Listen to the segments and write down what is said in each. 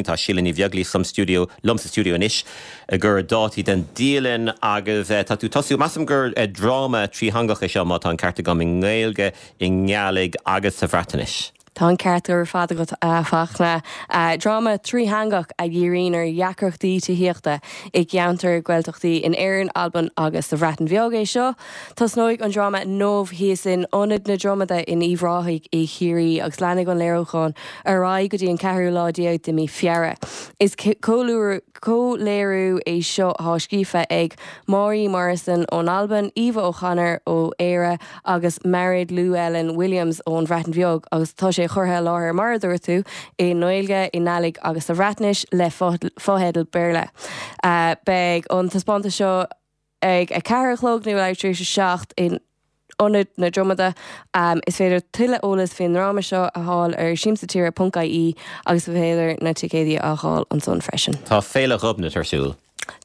Tá Síle Ní Bheaglaoich sa stiúideo, liom sa stiúideo anois ag cur dátaí den dialann agus tá tú tosú, measaim gur dráma trítheangach é seo má tá an ceart agam, i nGaeilge, i nGàidhlig agus sa Bhreatnais. Tá an ceart ar fad agat, a Fachtna. Dráma trítheangach a dhíríonn ar dheacrachtaí tithíochta i gceantair Gaeltachtaí in Éirinn, Albain agus sa Bhreatain Bheag é seo. Tosnóidh an dráma inniu thíos in Ionad na Dromada in Uíbh Ráthaigh i Chiarraí agus leanfaidh an léiriúchán ar aghaidh go dtí an ceathrú lá déag de mí Feabhra. Is comhléiriú é seo atá scríofa ag Màiri Morrison ón Albain, Eva O'Connor ó Éire agus Mared Llewelyn Williams ón Bhreatain Bheag agus tá sé curtha i láthair, mar a dúirt tú, i nGaeilge, i nGàidhlig agus sa Bhreatnais le fotheidil Béarla. Beidh an taispeántas seo. Ag 4 a chlog nó leathuair tar éis a 7 in Ionad na Dromada. Is féidir tuilleadh eolas faoin ndráma seo a fháil ar siamsatire ponc ie agus is féidir na ticéidí a fháil ansan freisin. Tá Féile Ghobnait ar siúl.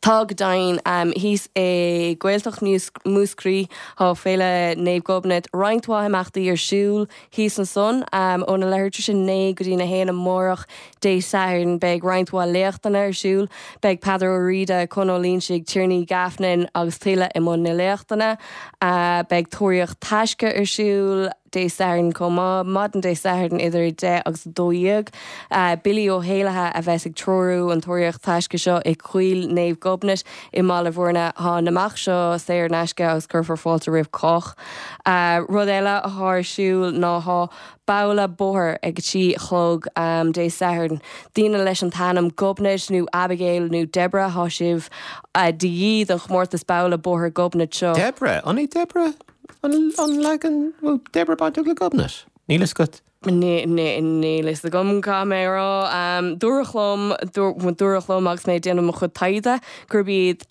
Tá go deimhin. Thíos i Gaeltacht Mhúscraí tá Féile Naomh Gobnait. Roinnt mhaith imeachtaí ar siúl thíos ansan. Óna leathuair tar éis a 9 go dtí'n 1 amárach Dé Sathairn beidh roinnt mhaith léachtanna ar siúl. Beidh Peadar Ó Riada, Con Ó Loingsigh, Tiarnaí Gaffnin agus tuilleadh i mbun na léachtanna. Beidh Tóraíocht Taisce ar siúl Dé Sathairn chomh maith, maidin Dé Sathairn idir 10 agus 12. Billy Ó hÉallaithe a bheas ag treorú an Tóraíocht Taisce seo i Coill Naomh Gobnait i mBaile Bhúirne. Tá an imeacht seo saor in aisce agus cuirfear fáilte roimh chách. Rud eile atá ar siúl ná tá Babhla bóthair ag a 3 a chlog Dé Sathairn. Daoine leis an t-ainm Gobnait nó Abigail nó Deborah, tá sibh de dhíth don chomórtas Babhla Bóthair Gobnait seo. Deborah? An é Deborah an leagan, bhfuil Deborah bainteach le Gobnait? Níl fhios agat? Níl fhios agam, caithfidh mé a rá. Dúradh liom, dúradh liom agus mé ag déanamh mo chuid taighde gurb iad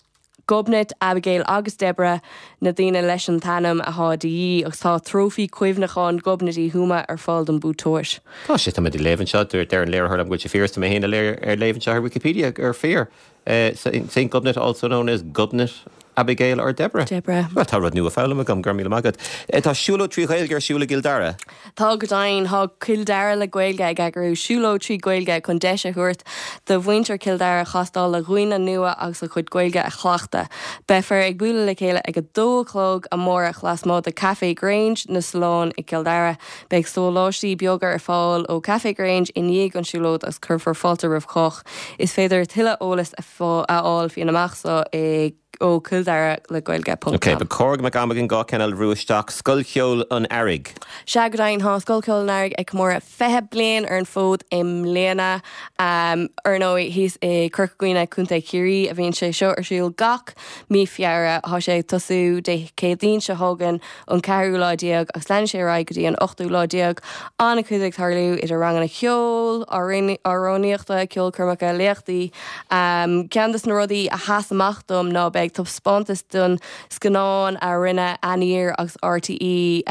Gobnait, Abigail agus Deborah na daoine leis an t-ainm atá de dhíth agus tá trófaí cuimhneacháin Ghobnait Uí Thuama ar fáil don buaiteoir. Tá sé, tá mé ag léamh anseo, deir an léiritheoir liom go bhfuil sé fíor is tá mé féin ag léamh anseo ar Wikipedia gur fíor. Saint Gobnait also known as Gobnait, Abigail or Deborah. Deborah. Bhuel, tá rud nua foghlamtha agam, go raibh míle maith agat. Tá siúlóid 3 Ghaeilge ar siúl i gCill Dara. Tá go deimhin. Tá Cill Dara le Gaeilge ag eagrú siúlóid 3 Ghaeilge chun deis a thabhairt do mhuintir Chill Dara castáil le dhaoine nua agus a gcuid Gaeilge a chleachtadh. Beifear ag bualadh le chéile ag 2 a chlog amárach lasmuigh de Café Grange, na Solláin i gCill Dara. Beidh sóláistí beaga ar fáil ó Café Grange i ndiaidh an siúlóid agus cuirfear fáilte roimh chách. Is féidir tuilleadh eolais a fháil faoin imeacht seo i. ó cilldaralegaeilge ponc Ok, com. ba chóir go mbeadh am againn 2 ceann eile a bhrú isteach. Scoil Cheoil an Earraigh. Sea go deimhin, tá Scoil Cheoil an Earraigh ag comóradh 20 bliain ar an bhfód i mbliana. Ar ndóigh, thíos i Corca Dhuibhne, Contae Chiarraí, a bhíonn sé seo ar siúl gach mí Feabhra. Tá sé ag tosú Dé Céadaoin seo chugainn, an ceathrú lá déag agus leanfaidh sé ar aghaidh go dtí an ochtú lá déag. An-chuid ag tarlú idir ranganna ceoil, amhránaíochta, ceolchoirmeacha, léachtaí. Ceann de na rudaí a sheas amach dom ná beidh taispeántas den scannán a rinne Aniar agus RTÉ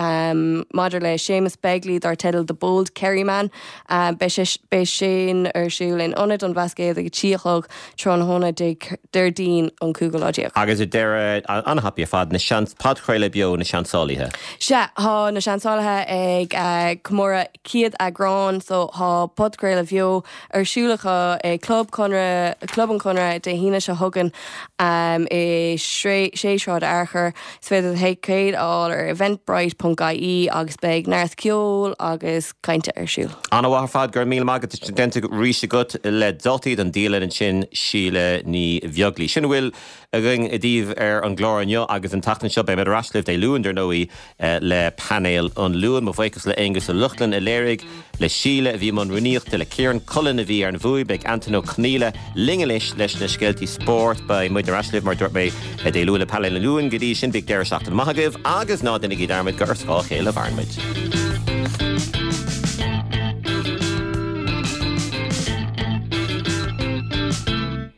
maidir le Séamus Begley dar teideal The Bold Kerryman. Beidh sin ar siúl in Ionad an Bhlascaoid ag a 3 a chlog tráthnóna Déardaoin an cúigiú lá déag. Agus ar deireadh, an-thapaidh ar fad, na seans, podchraoladh beo Na Seansálaithe. Sea, tá Na Seansálaithe ag comóradh 100 eagrán so tá podchraoladh bheo ar siúl acu i Club Conradh, Club an Chonradh Dé hAoine seo chugainn i 6 Sráid Fhearchair. Is féidir ticéid a fháil ar eventbrite ponc ie agus beidh neart ceoil agus cainte ar siúl. An-mhaith ar fad, go raibh míle maith agat, déanta arís agat le dátaí don dialann ansin, Síle Ní Bheaglaoich. Sin a bhfuil againn daoibh ar an gclár inniu agus an tseachtain seo. Beidh muid ar ais libh Dé Luain, dar ndóigh, le painéal an Luain. Mo bhuíochas le Aonghus Ó Lochlainn a léirigh, le Síle a bhí i mbun rúnaíochta, le Ciarán Cullen a bhí ar an bhfuaim. Beidh Antain Ó Conghaile linn anois leis na scéaltaí spóirt. Beidh muid ar ais libh, mar a dúirt mé, Dé Luain le Painéal an Luain. Go dtí sin, bíodh deireadh seachtaine maith agaibh agus ná déanaigí dearmad gur ar scáth a chéile a mhaireann muid.